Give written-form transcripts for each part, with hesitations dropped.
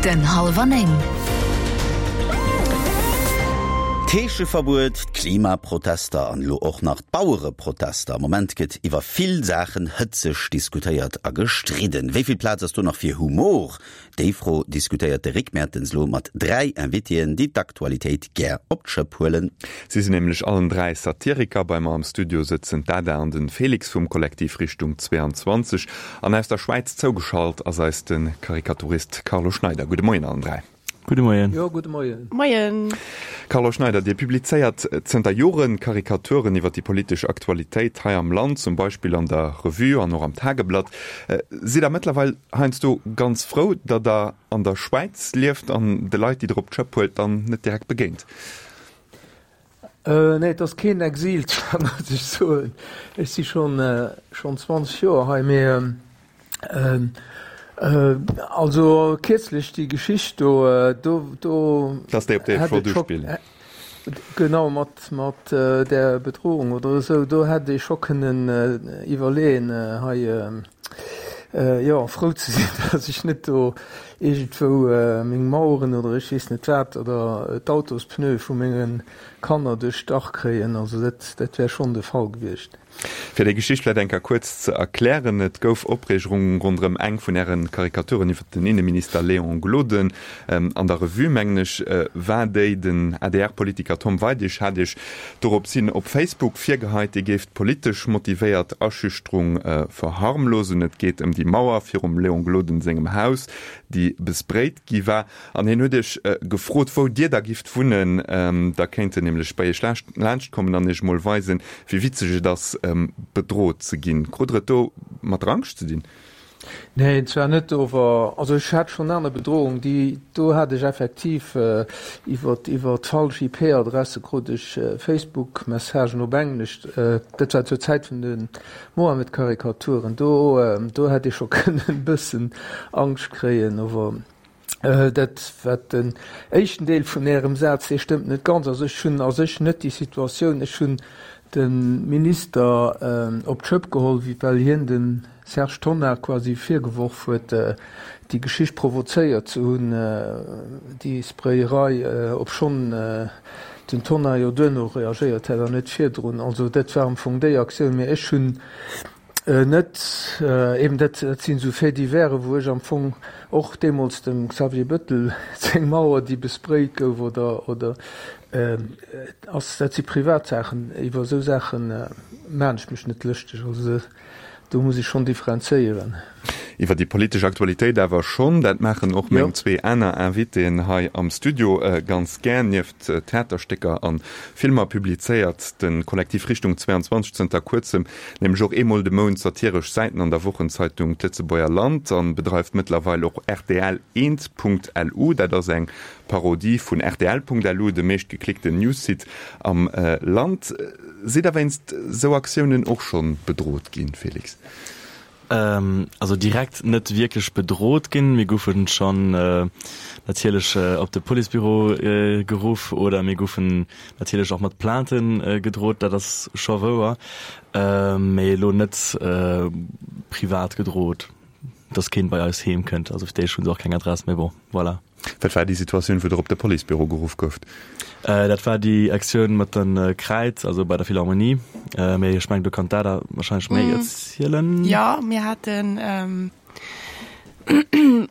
Den Hallwer 9. D'Heescheverbuet, d'Klimaprotester an elo och nach d'Bauereprotester. Am Moment gëtt iwwer vill Saachen hëtzeg diskutéiert a gestridden. Wéi vill Plaz ass do nach fir Humor? Déi Fro diskutéiert de Rick Mertens lo mat 3 Invitéen, déi d'Aktualitéit gär op d'Schëpp huelen. Si sinn nämlech allen 3 Satiriker. Bei mer am Studio sëtzen d'Ada an den Felix vum Kollektiv Richtung 22 an aus der Schwäiz zougeschalt ass eis de Karikaturist Carlo Schneider. Gudde Moien allen 3. Gudde Moien. Jo, gudde Moien. Moien. Carlo Schneider, Dir publizéiert zënter Joren Karikaturen iwwer déi politesch Aktualitéit hei am Land, zum Beispill an der Revue an och am Tageblatt. Sidd Der mëttlerweil heiansdo ganz frou, datt Der an der Schwäiz lieft an de Leit, déi Der op d'Schëpp huelt, dann net direkt begéint? Nee, et ass keen Exil, zwar muss ech soen, ech si schonn schonn 20 Joer hei, mee also kierzlech déi Geschicht do, do do Dass déi op déi hätt flott et scho uspillen. Genau, mat mat där Bedrohung oder esou, do hätt ee scho kënnen iwwerleeën hei, jo, frou ze sinn, dass ech net do iergendwou meng Maueren oder ech weess net wat oder d'Autospneue vu menge Kanner duerchstach kréien. Also dat, dat wär schonn de Fall gewiescht. Fir déi Geschicht vläicht eng Kéier kuerz ze erklären, Et gouf Opreegung ronderëm eng vun Äre Karikaturen iwwer den Inneminister Léon Gloden. An der Revue, mengen ech, war déi. Den ADR-Politiker Tom Weidig hat Iech dorops hin op Facebook virgeheit, Dir géift politesch motivéiert Aschüchterung verharmlosen. Et geet ëm déi Mauer virum Léon Gloden sengem Haus, déi besprayt gi war. An hien huet Iech gefrot, wou Dir da gifft wunnen. Da kéint en nämlech bei Iech laanscht kommen an Iech mol weisen, wéi witzeg et ass, bedrot ze ginn. Krut Der et do mat der Angscht ze dinn? Neen, zwar net, ower also ech hat schonn aner Bedrohung, déi do hat ech effektiv iwwer iwwer d'falsch IP-Adresse krut ech Facebook-Messagen op Englesch, dat war zur Zäit vun de Mohammed-Karikaturen, do do hätt ee scho kënnen e bëssen Angscht kréien, ower Dat wat den éischten Deel vun Ärem Saz, dee stëmmt net ganz. Also ech hunn a sech net déi Situatioun, ech hunn de Minister op d'Schëpp geholl, well hien dem Serge Tonnar quasi virgeworf huet, déi Geschicht provozéiert ze hunn, déi Sprayerei, obschonn den Tonnar jo duerno reagéiert hätt an net virdrun. Also dat war am Fong déi Aktioun. Mä ech hunn Net eben, dat sinn esou Faits divers, wou ech am Fong och deemools dem Xavier Bettel seng Mauer, déi besprayt gouf, oder, oder ass, dat si Privatsaachen, iwwer esou Saache maan ech mech net lëschteg. Also do muss ech schonn differenzéieren. Iwwer déi politesch Aktualitéit awer schonn. Dat maachen och meng zwee aner Invitéen hei am Studio ganz gär. Nieft Theaterstécker a Filmer publizéiert de Kollektiv Richtung 22 zënter kuerzem nämlech och eemol de Mount satiresch Säiten an der Wochenzeitung D'Lëtzebuerger Land an bedreift mëttlerweil och rtl-eent.lu. Dat ass eng Parodie vun rtl.lu, dem meeschtgeklickten Newssite am Land. Sidd der wéinst sou Aktiounen och schonn bedrot ginn, Felix? Also direkt net wierklech bedrot ginn. Mir goufen schonn natierlech op de Policebüro geruff oder mir goufen natierlech och mat Plaintë gedrot, dat ass scho wouer. Mee elo net privat gedrot, dass keen bei eis heem kënnt. Also fir d'éischt hu se och keng Adress, mee bon, voilà. Wat war déi Situatioun, wou Der op de Policebüro geruff gouft? Dat war déi Aktioun mat de Kräid, also bei der Philharmonie. Mee ech mengen, do kann d'Ada warscheinlech méi erzielen. Jo, mir haten,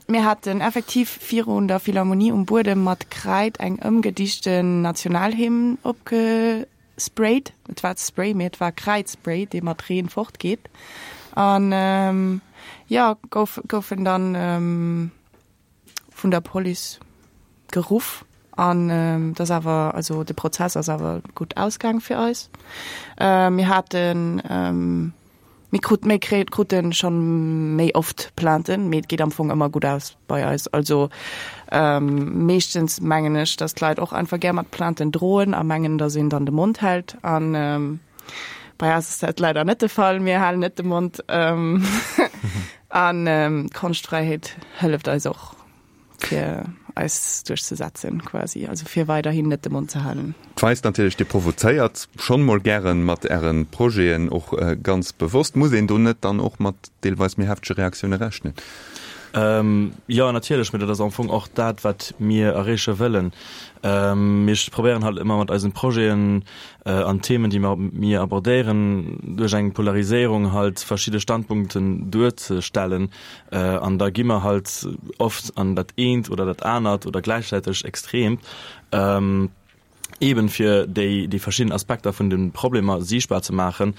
mir haten effektiv virun der Philharmonie um Buedem mat Kräid eng ëmgedichten Nationalhymn opgesprayt. Et war Spray, mee et war Kräidspray, dee mat Reen fortgeet. An jo, gouf, goufen dann vun der Police geruff an dat ass awer, also de Prozess ass awer gutt ausgaang fir eis. Mir haten, mir krut, mir krute schonn méi oft Plainten, mee et geet am Fong ëmmer gutt aus bei eis. Also meeschtens mengen ech, datt d'Leit och einfach gär mat Plainten droen a mengen, datt een dann de Mond hält an bei eis ass dat leider net de Fall. Mir halen net de Mond. An d'Konschtfräiheet hëlleft eis och, fir eis duerchzesetzen quasi, also fir weiderhin net de Mond ze halen. D'weist natierlech, Dir provozéiert schonn mol gären mat Ären Projeten, och ganz bewosst. Muss een do net dann och mat deelweis méi heftege Reaktioune rechnen? Jo, natierlech, mee dat ass am Fong och dat, wat mir erreeche wëllen. Mir probéieren halt ëmmer mat eisen Projeten an Themen, déi mer mir abordéieren, duerch eng Polariséierung halt verschidde Standpunkten duerzestellen. An da gi mer halt oft an dat eent oder dat anert oder gläichzäiteg Extreemt. eben fir déi déi verschidden Aspekter vun de Problemer siichtbar ze maachen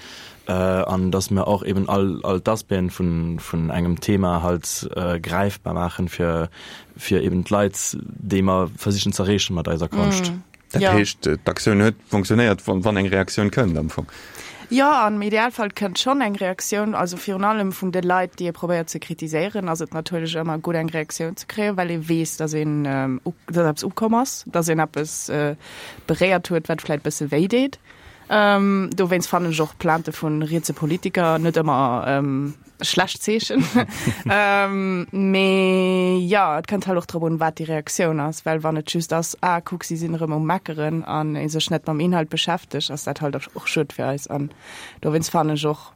an dass mer och eben all all d'Aspecten vun vun engem Thema halt gräifbar maachen fir fir eben d'Leit déi mer versichen z'erreechen mat eiser Konscht. Dat heescht d'Aktioun huet fonctionnéiert wann wann eng Reaktioun kënnt am Fong? Jo, am Idealfall kënnt schonn eng Reaktioun, also virun allem vun de Leit, déi ee probéiert ze kritiséieren, ass et natierlech ëmmer gutt eng Reaktioun ze kréien, well ee weess, datt een, datt eppes ukomm ass, datt een eppes beréiert huet, wat vläicht bësse wéi deet. Dowéinst fannen ech och Plainte vu rietse Politiker net ëmmer schlecht Zeechen. Mee jo, et kënnt halt och drop un, wat déi Reaktioun ass, well wann et just ass, ah kuck, si sinn erëm um Meckeren an ee sech net mam Inhalt beschäftegt, ass dat halt och schued fir eis. An dowéinst fannen ech och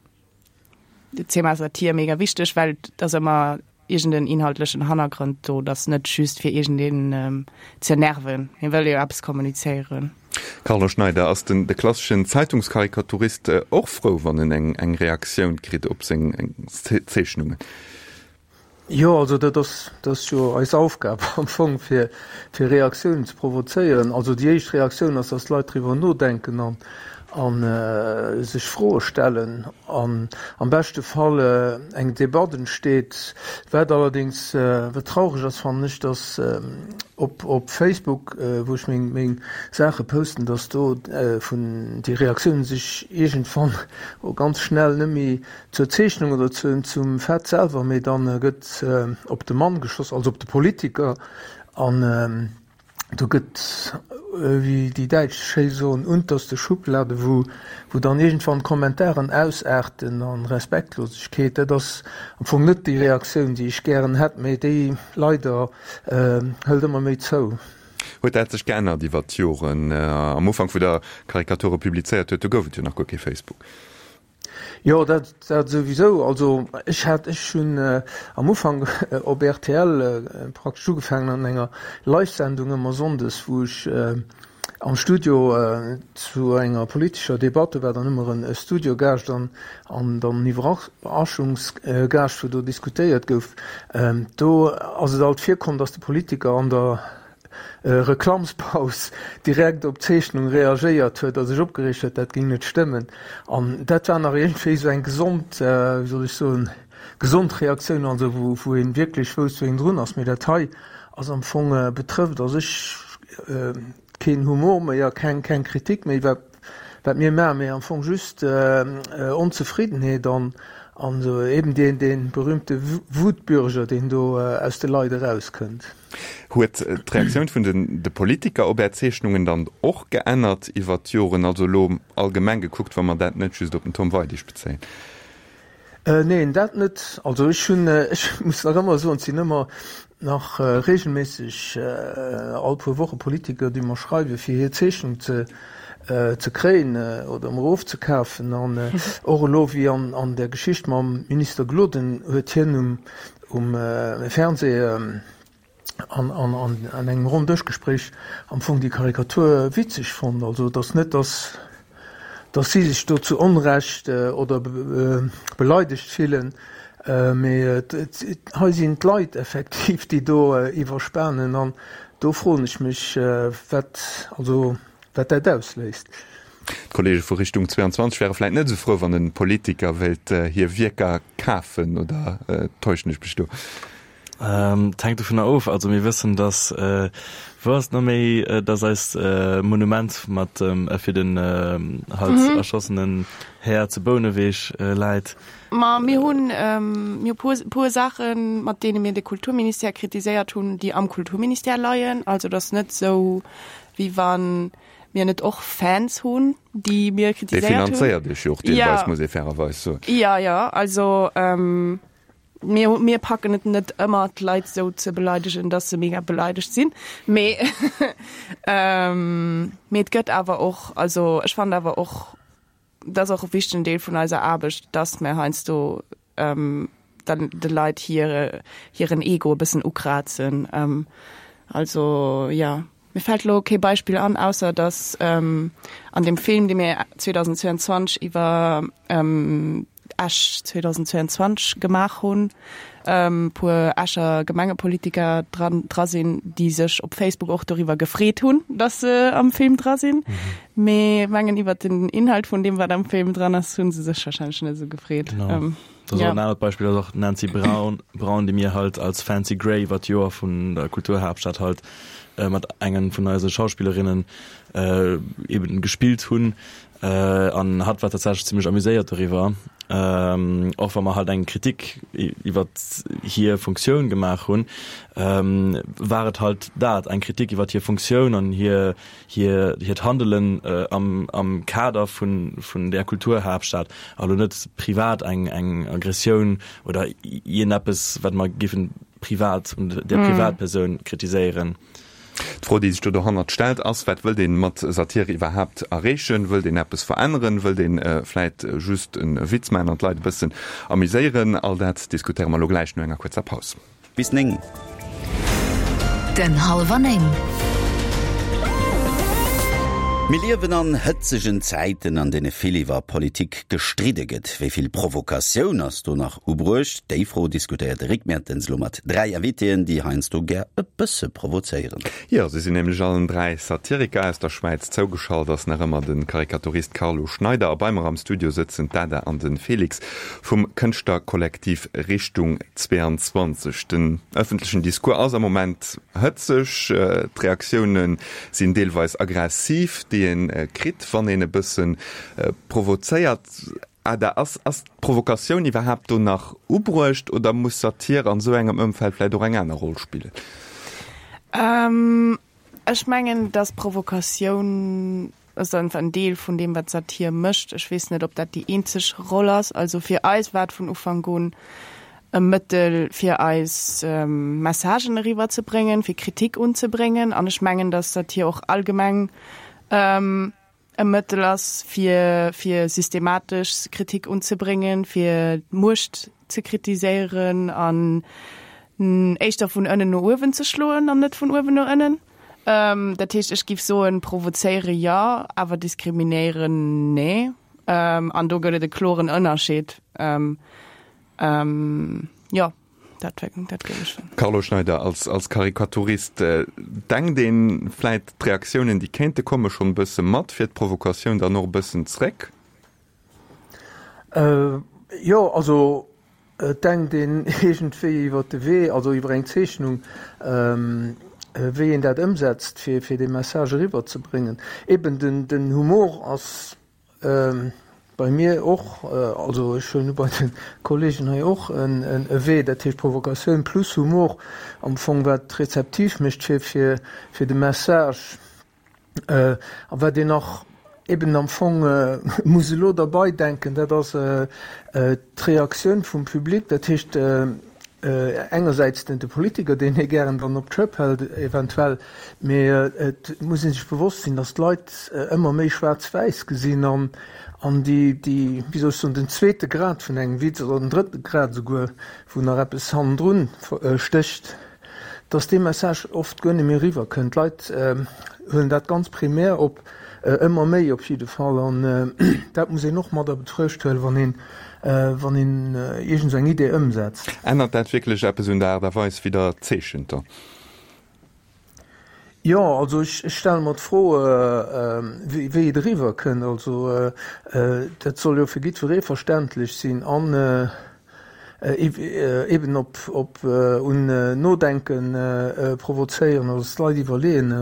d'Thema Satir mega wichteg, well et ass ëmmer iergend en inhaltlechen Hannergrond do, et ass net just fir iergendeen ze nerven, hie wëll jo eppes kommunizéieren. Carlo Schneider, Ass den de klasseschen Zeitungskarikaturist och frou, wann en eng eng Reaktioun kritt op seng Zeechnungen? Jo, also dat ass dat ass jo eis Aufgab am Fong, fir fir Reaktiounen ze provozéieren. Also déi éischt Reaktioun ass, datt d'Leit driwwer nodenken an an sech Froe stellen an am beschte Fall eng Debatt entsteet. Wat allerdéngs, wat traureg ass, fannen ech, datt op op Facebook, wou ech meng meng Saache posten, datt do vun déi Reaktiounen sech iergendwann ganz schnell net méi zur Zeechnung oder zu zum Fait selwer, mee dann gëtt op de Mann geschoss, also op de Politiker an Do gëtt, wéi déi Däitsch schéi soen, unterste Schublade, wou, wou dann iergendwann d'Kommentaren ausaarten an Respektlosegkeet. Dat ass am Fong net déi Reaktioun, déi ech gären hätt, mee déi leider hëlt ëmmer méi zou. Huet dat sech geännert iwwer d'Joren? Am Ufank, wou Der Karikature publizéiert huet, do gouf et jo nach guer kee Facebook. Jo, dat dat souwisou. Also ech hat, ech hunn am Ufank op rtl praktesch ugefaangen an enger Live-Sendung ëmmer sonndes, wou ech am Studio zu enger politescher Debatt, do war dann ëmmer e Studiogaascht an an dann en Iwwerraschungsgaascht, wou do diskutéiert gouf. Do ass et alt virkomm, datt de Politiker an der Reklammspaus direkt op d'Zeechnung reagéiert huet a sech opgereegt huet, dat géing net stëmmen. An dat war nach iergendwéi esou eng gesond, wéi soll ech soen, gesond Reaktioun, also wou wou ee wierklech wousst, wou een drun ass. Mee dat hei ass am Fong, betrëfft a sech keen Humor méi a keng keng Kritik méi, wat wat mir maachen, mee am Fong just Onzefriddenheet an an esou eben deen dee berühmte Wutbürger, deen do aus de Leit erauskënnt. Huet d'Reaktioun vun de Politiker op Är Zeechnungen dann och geännert iwwert d'Joren, also elo allgemeng gekuckt, wa mer dat net just op den Tom Weidig bezéien? Neen, dat net. Also ech hunn, ech muss nach ëmmer soen, et sinn ëmmer nach reegelméisseg all puer Woche Politiker, déi mer schreiwen, fir hir Zeechnung ze ze kréien oder emol ofzekafen. An och elo wéi an der Geschicht mam Minister Gloden huet hien um um Fernseh an an engem Ronndëschgespréich am Fong déi Karikatur witzeg fonnt. Also et ass net, datt datt si sech do zu Onrecht oder beleidegt fillen, mee hei sinn d'Leit effektiv, déi do iwwerspanen an do froen ech mech, wat also wat dat ausléist. D'Kollege vu Richtung 22 wäre vläit net esou frou, wann e Politiker wéilt hir Wierker kafen, oder täuschen ech mech do? Et hänkt dovunner of. Also mir wëssen, datt, wou ass et nach méi, datt eist Monument mat dem fir den halt erschossenen Här zu Bouneweg läit. Ma mir hunn mir hu puer Saachen, mat deene mir de Kulturministère kritiséiert hunn, déi am Kulturministère leien. Also et ass net esou, wéi wa mir net och Fans hunn, déi mir kritiséiert hunn. Dee finanzéiert iech jo och deelweis, muss ee fairerweis soen. Jo, jo, also mir, mir packen et net ëmmer, d'Leit esou ze beleidegen, dass se mega beleidegt sinn. Mee mee et gëtt awer och, also ech fannen awer och, dat ass och e wichtegen Deel vun eiser Aarbecht, dass mir heiansdo. dann de Leit hire hiren Ego e bëssen ukrazen. Also jo, mir fält elo kee Beispill an, ausser datt an deem Film, dee mir 2022 iwwer Esch 2022 gemaach hunn, puer Escher Gemengepolitiker dran dra sinn, déi sech op Facebook och doriwwer gefreet hunn, datt se am Film dra sinn. Mee mengen iwwer den Inhalt vun deem, wat am Film dran ass, hu se sech warscheinlech net esou gefreet. Genau. Dat ass och en anert Beispill, ass och d'Nancy Braun, Braun, déi mir halt als Fancy Grey iwwer d'Joer vun der Kulturhaaptstad halt mat engen vun eise Schauspillerinnen eben gespillt hunn. An hatt war tatsächlech zimmlech amuséiert doriwwer, och wa mer halt eng Kritik iwwer hir Funktioun gemaach hunn, war et halt dat, eng Kritik iwwer hir Funktioun an hir hir hiert Handelen am am Kader vun vun där Kulturhaaptstad, a lo net privat eng eng Aggressioun oder iergendeppes, wat mer géifen privat un där Privatpersoun kritiséieren. D'Fro, déi sech do dohannert stellt, ass, Wat wëllt ee mat Satire iwwerhaapt erreechen? Wëllt een eppes veränneren? Wëllt ee vläit just e Witz maachen an d'Leit e bëssen amuséieren? All dat diskutéiere mer elo gläich no enger kuerzer Paus. Bis 9. Den Hallwer 9. Mir liewen an hëtzegen Zäiten, an deene vill iwwer Politik gestridde gëtt. Wéi vill Provokatioun ass do nach ubruecht? Déi Fro diskutéiert de Rick Mertens elo mat 3 Invitéen, déi heiansdo gär e bësse provozéieren. Jo, si sinn nämlech allen 3 Satiriker. Aus der Schwäiz zougeschalt ass nach ëmmer de Karikaturist Carlo Schneider a bei mer am Studio sëtzen d'Ada an de Felix vum Kënschtlerkollektiv Richtung 22. Den ëffentlechen Discours ass am Moment hëtzeg, d'Reaktioune sinn deelweis aggressiv, déi ee kritt, wann een e bësse provozéiert. Ada, ass ass d'Provokatioun iwwerhaapt do nach ubruecht oder muss Satir an esou engem Ëmfeld vläicht och eng aner Roll spillen? Ech mengen, datt Provokatioun ass einfach en Deel vun deem, wat Satir mécht. Ech weess net, ob dat déi eenzeg Roll ass. Also fir eis war et vun Ufank un e Mëttel, fir eis Messagen eriwwer ze bréngen, fir Kritik unzebréngen. An ech mengen, datt Satir och allgemeng e Mëttel ass, fir fir systematesch Kritik unzebréngen, fir d'Muecht ze kritiséieren an éischter vun ënnen no uewen ze schloen an net vun uewen no ënnen. Dat heescht, ech giff soen, provozéiere jo, awer diskriminéieren nee. An do gëtt et e kloren Ënnerscheed. Jo, dat dat géif ech soen. Carlo Schneider, als als Karikaturist, denkt ee vläit d'Reaktiounen, déi kéinte komme schonn e bësse mat, fir d'Provokatioun dann och e bëssen zréck? Jo, also et denkt een iergendwéi iwwer de Wee, also iwwer eng Zeechnung, wéi een dat ëmsetzt, fir fir dee Message eriwwer ze bréngen. Eben den den Humor ass bei mir och, also ech huelen u bei de Kollegen hei och, en e Wee, dat heescht Provokatioun plus Humor am Fong, wat rezeptiv mécht fir fir fir de Message. A wat een nach eben am Fong muss elo derbei denken, dat ass d'Reaktioun vum Public, dat heescht engersäits den de Politiker, deen ee gären dann op d'Schëpp hält eventuell, mee et muss ee sech bewosst sinn, datt d'Leit ëmmer méi schwaarz-wäiss gesinn an an déi, déi, wéi soll ech soen, den zweete Grad vun engem Witz oder den drëtte Grad esouguer, wou nach eppes hannendrun stécht, dass dee Message oft guer net méi eriwwer kënnt. D'Leit huelen dat ganz primär op, ëmmer méi op jidde Fall, an dat muss een och mat a Betruecht huelen, wann een, wann een iergend esou eng Idee ëmsetzt. Ännert dat wierklech eppes un der Aart a Weis, wéi Der zeechent da? Jo, also ech stelle mer d'Fro, wéi et eriwwer kënnt. Also dat soll jo fir jiddweree verständlech sinn an eben op op un Nodenke provozéieren, also dass d'Leit iwwerleeën,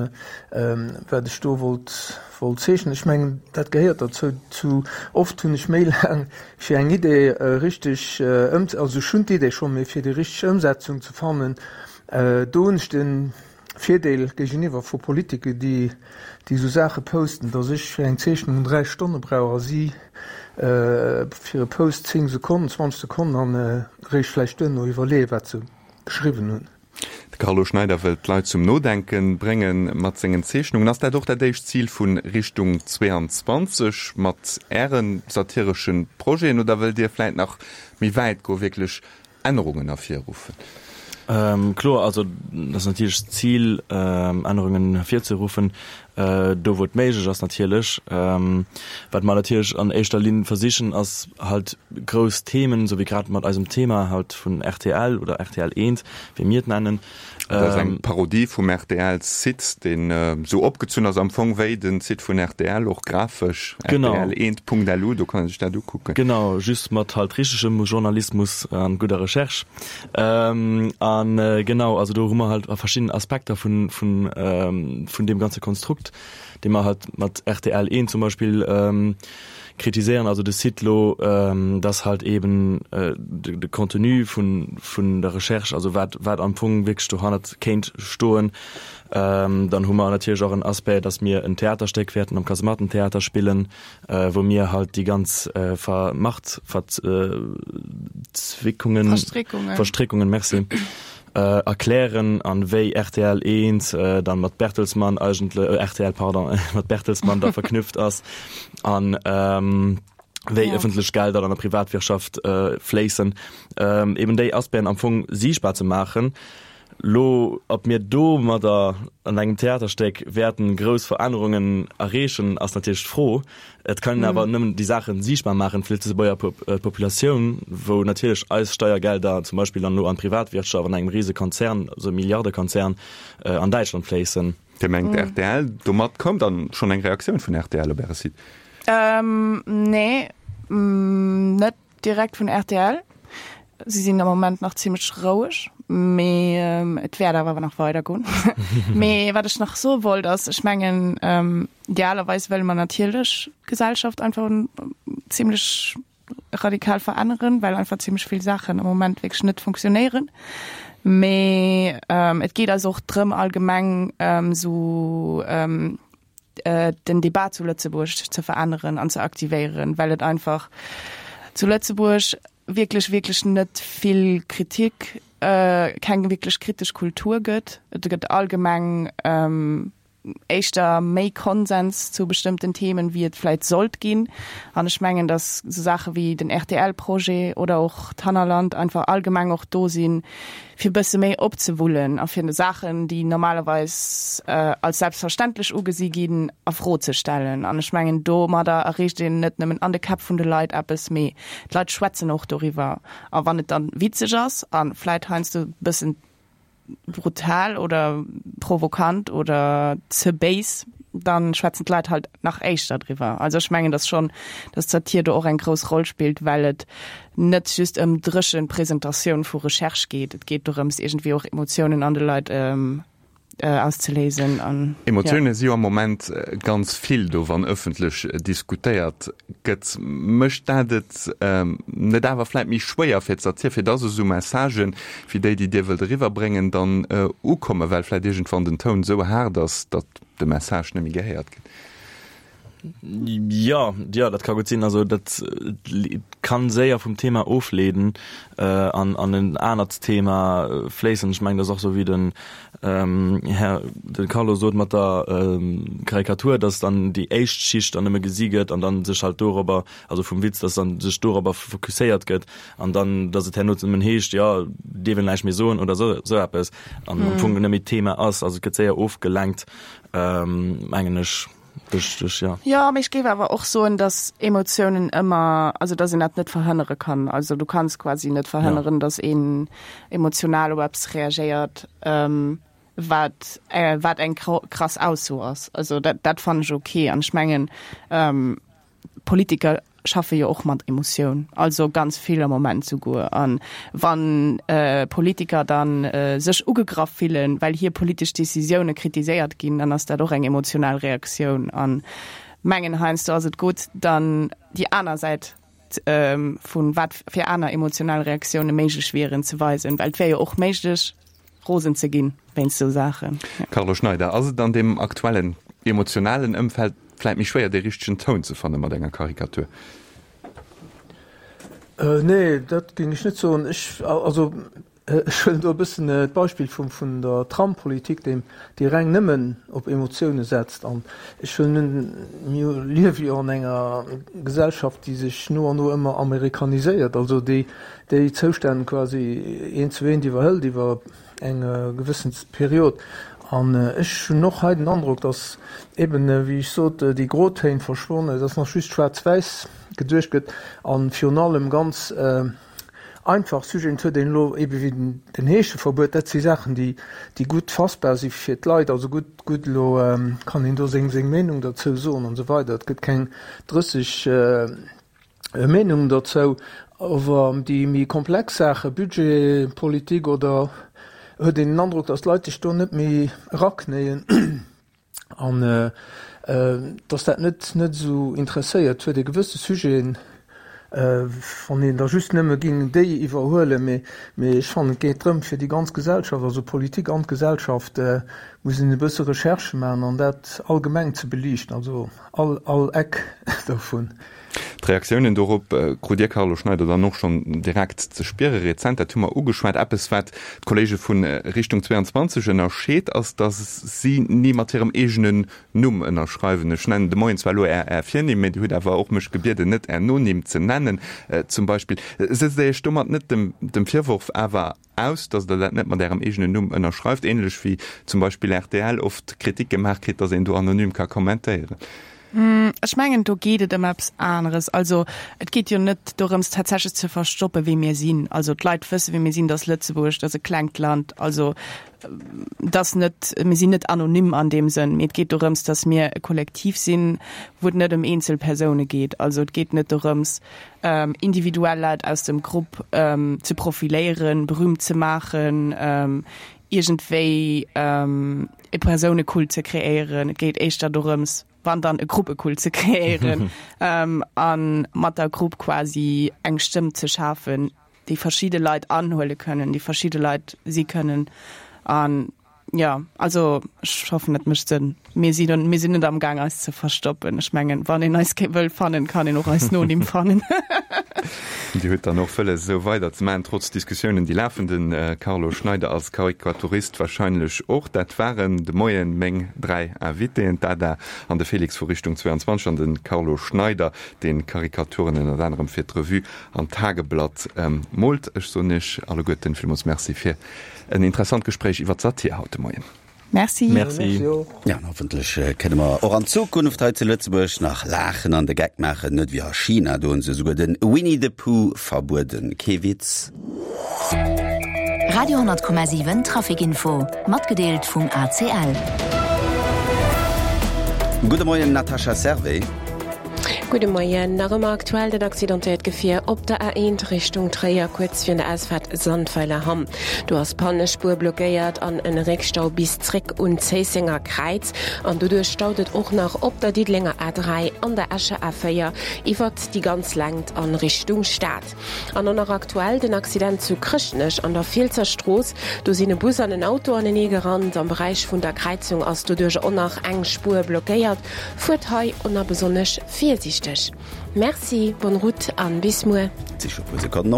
wat ech do wollt wollt zeechnen. Ech mengen, dat gehéiert derzou. Zu oft hunn ech méi laang fir eng Idee richteg ëm, also ech hunn d'Idee schonn, mee fir déi richteg Ëmsetzung ze fannen, do hunn ech de Virdeel géigeniwwer vu Politiker, déi déi esou Saache posten, datt ech fir eng Zeechnung 3 Stonne brauch a si fir e Post 10 Sekonnen, 20 Sekonnen an eréischt vläicht duerno iwwerleeë wat se geschriwwen hunn. De Carlo Schneider wëllt d'Leit zum Nodenke brénge mat sengen Zeechnungen. Ass dat och dat éischt Zil vu Richtung 22 mat Äre satiresche Projeten oder wëllt Dir vläit nach méi wäit goen, wierklech. Ännerungen ervirruffen? Kloer, also dat ass natierlech d'Zil, Ännerungen ervirzeruffen, do wou et méiglech ass natierlech. Wat mer natierlech an éischter Linn versichen, ass halt grouss Themen, esou wéi grad mat eisem Thema halt vun rtl oder rtl Eent, wéi mir et nennen, Dat ass eng Parodie vum RTL-Site, deen esou opgezunn ass am Fong wéi den Site vun rtl, och grafesch, rtl1.lu, do kann ee sech dat ukucken. Genau, just mat halt richtegem Journalismus an gudder Recherche. An genau, also do hu mer halt verschidden Aspekter vun, vun, vun deem ganze Konstrukt, dee mer halt mat rtl 1 zum Beispill kritiséieren, also de Site lo, dass halt eben de Contenu vun, vun der Recherche, also wat, wat am Fong wierklech dohannert kéint stoen. Dann hu mer natierlech och en Aspect, dass mir en Theaterstéck wäerten am Kasemattentheater spillen, wou mir halt déi ganz Ver Machtverzwickungen, Verstréckungen. Verstréckungen, merci, erklären an wéi rtl 1 dann mat Bertelsmann eigentle, rtl, pardon, mat Bertelsmann da verknüpft ass an wéi ja. ëffentlech Gelder an der Privatwirtschaft fléissen, eben déi Aspecten am Fong siichtbar ze maachen. Lo, ob mir domadder an engem Theaterstéck wäerten grouss Verännerungen erreechen, ass natierlech d'Fro. Et kann een awer nëmmen déi Saachen siichtbar maachen fir d'Lëtzebuerger Populatioun, wou natierlech eis Steiergelder zum Beispill dann elo an d'Privatwirtschaft, an engem rise Konzern, also e Milliardekonzern an Däitschland fléissen. Dir mengt rtl, domat koum dann schonn eng Reaktioun vun rtl op Äre Site? Nee, net Direkt vun rtl. Si sinn am Moment nach zimmlech roueg, mee et wäert awer nach weider goen. Mee wat ech nach soe wollt ass, ech mengen idealerweis wëlle mer natierlech d'Gesellschaft einfach zimmlech radikal veränneren, well einfach zimmlech vill Saachen am Moment wierklech net funktionéieren. Mee et geet eis och drëm allgemeng esou, den Debat zu Lëtzebuerg ze veränneren an ze aktivéieren, well et einfach zu Lëtzebuerg wierklech, wierklech net vill Kritik, keng wierklech kritesch Kultur gëtt. Et gëtt allgemeng éischter méi Konsens zu bestëmmten Themen, wéi et vläit sollt ginn. An ech mengen, datt esou Saache wéi den RTL-Projet oder och d'Hannerland einfach allgemeng och do sinn, fir bësse méi opzewullen a fir Saachen, déi normalerweis als selbstverständlech ugesi ginn, a Fro ze stellen. An ech mengen, domadder erreecht een net nëmmen an de Käpp vun de Leit eppes, mee d'Leit schwätzen och doriwwer. A wann et dann witzeg ass a vläit heiansdo e bëssen brutal oder provokant oder ze béis, dann schwätzen d'Leit halt nach éischter driwwer. Also ech mengen, dass schonn, dass d'Satir do och eng grouss Roll spillt, well et net just ëm dréchen Presentatioun vu Recherche geet. Et geet dorëms, iergendwéi och Emotiounen an de Leit auszeléisen an, ja. Emotioune si jo am Moment ganz vill do, wann ëffentlech diskutéiert gëtt. Mécht dat et net awer vläit méi schwéier fir d'Satir, fir dass esou Messagen, wéi déi, déi Dir wëllt eriwwerbréngen, dann ukommen, well vläit iergendwann den Toun esou haart ass, datt de Message net méi gehéiert gëtt? Jo, jo, dat ka gutt sinn. Also dat kann séier vum Thema ofleeden an an en anert Thema fléissen. Ech mengen, dat ass och sou wéi den Här de Carlo sot mat der Karikatur, datt dann déi éischt Schicht dann nëmme gesi gëtt an dann sech halt dorobber, also vum Witz, datt dann sech dorobber fokusséiert gëtt an dann, datt et herno nëmmen heescht, jo, dierf een näischt méi soen oder sou sou eppes an am Fong net méi d'Thema ass. Also et gëtt séier ofgelenkt, mengen ech. Richteg, jo. Jo, mee ech géif awer och soen, dass Emotiounen ëmmer, also dass een dat net verhënnere kann. Also du kanns quasi net verhënneren, dass een emotional op eppes reagéiert, wat wat eng krass Ausso ass. Also dat dat fannen ech ok. An ech mengen, Politiker schaffe jo och mat Emotioun, also ganz vill am Moment souguer. An wann Politiker dann sech ugegraff fillen, well hir politesch Decisioune kritiséiert ginn, dann ass dat och eng emotional Reaktioun. An mengen heiansdo ass et gutt, dann déi aner Säit vu wat fir aner emotional Reaktioune méiglech wieren ze weisen, well et wär jo och méiglech, rosen ze ginn wéinst sou Saachen. Carlo Schneider, Ass et an deem aktuellen emotionalen Ëmfeld vläit méi schwéier dee richtegen Toun ze fanne mat enger Karikatur? Nee, dat géing ech net soen. Ech, also. Ech huelen do e bëssen d'Beispill vum vun der Trampolitik, déi déi reng nëmmen op Emotioune setzt. An ech huelen un, mir liewe jo an enger Gesellschaft, déi sech no an no ëmmer amerikaniséiert, also déi déi Zoustänn quasi eent zu eent iwwerhëlt iwwer eng gewëssen Period. An ech hunn och hei den Androck, datt eben, wéi ech sot, déi Grotéin verschwonnen, datt nach just schwaarz-wäiss geduecht gëtt a virun allem ganz, Einfach Sujeten, et huet een elo ebe wéi den Heescheverbuet, dat si Saachen, déi déi gutt fassbar si fir d'Leit, also gutt, gutt elo kann een do seng seng Meenung derzou soen an esou weider, et gëtt keng 30 Meenungen derzou, awer déi méi komplex Saachen, Budgetpolitik oder, huet een den Androck, datt d'Leit sech do net méi eraknéien. An dass dat net net esou interesséiert huet, e gewësse Sujeten, wann een da just nëmme géing déi iwwerhuelen, mee mee ech fannen, et geet drëm fir déi ganz Gesellschaft, also Politik an d'Gesellschaft, muss een e bësse Recherche maachen an dat allgemeng ze beliichten, also all all Eck dovun. D'Reaktiounen dorop krut Dir, Carlo Schneider, dann och schonn direkt ze spiere. Rezent, dat hu mer ugeschwat, eppes wat d'Kolleege vu Richtung 22 ënnerscheet, ass, datt si ni mat hirem eegenen Numm ënnerschreiwen. Ech nennen de Moien zwar elo Är Är Virnimm, mee Dir hutt awer och mech gebieden, net Är Nonimm ze nennen zum Beispill. Setzt Dir Iech domat net dem dem Virworf awer aus, datt Der dat net mat Ärem eegenen Numm ënnerschreift, ähnlech wéi zum Beispill rtl oft Kritik gemaach kritt, datt een do anonym ka kommentéieren? Ech mengen, do geet et ëm eppes aneres. Also et geet jo net dorëms, tatsächlech ze verstoppen, wie mir sinn. Also d'Leit wëssen, wie mir sinn, dass Lëtzebuerg, dat ass e klengt Land. Also dass net, mir sinn net anonym an deem Sënn, mee et geet dorëms, dass mir e Kollektiv sinn, wou et net ëm eenzel Persoune geet. Also et geet net dorëms, individuell Leit aus dem Grupp ze profiléieren, berühmt ze maachen, iergendwéi e Persounekult ze kreéieren. Et geet éischter dorëms, wann dann e Gruppekult ze kreéieren a mat der Grupp quasi eng Stëmm ze schafen, déi verschidde Leit anhuele kënnen, déi verschidde Leit si kënnen. An Jo, also ech hoffen et mécht Sënn. Mir sinn mir sinn net am Gaang eis ze verstoppen. Ech mengen, wann een eis wëll fannen, kann een och eis Nonimm fannen. Dir hutt dann och wëlles esou weider ze maachen, trotz Diskussiounen déi lafen. De Carlo Schneider als Karikaturist wahrscheinlech och. Dat waren de Moien meng 3 Invitéen, d'Ada an de Félix vu Richtung 22 an de Carlo Schneider, dee Karikaturen ënnert anerem fir d'Revue an d'Tageblatt moolt. Ech soen Iech alleguerten villmools Merci fir En interessant Gespréich iwwer d'Satir haut de Moien. Merci. Merci. Ja, an hoffentlech kënne mer och an Zukunft hei zu Lëtzebuerg nach laachen an de Geck maachen, net wéi a China, do hunn se esouguer de Winnie the Pooh verbueden. Kee Witz. Radio 10,7 Trafic Info, matgedeelt vum ACL. Gudde Moien Natascha Servais. Gudde Moien. Nach ëmmer aktuell dat accidentéiert Gefier op der A1 Richtung Tréier, kuerz virun der Ausfaart Sandweiler-Hamm. Do ass d'Pannespuer blockéiert an en Réckstau bis zréck un d'Zéissenger Kräiz. An doduerch staut et och nach op der Diddelenger A3 an der Escher A4 iwwert déi ganz Längt a Richtung Stad. An och nach aktuell den Accident zu Chrëschtnech an der Fielsser Strooss. Do sinn e Bus an en Auto anenee gerannt. Am Beräich vun der Kräizung ass doduerch och nach eng Spuer blockéiert. Fuert hei och nach besonnesch virsiichteg. Merci, bonne route an bis muer. Et si scho puer Sekonnen op.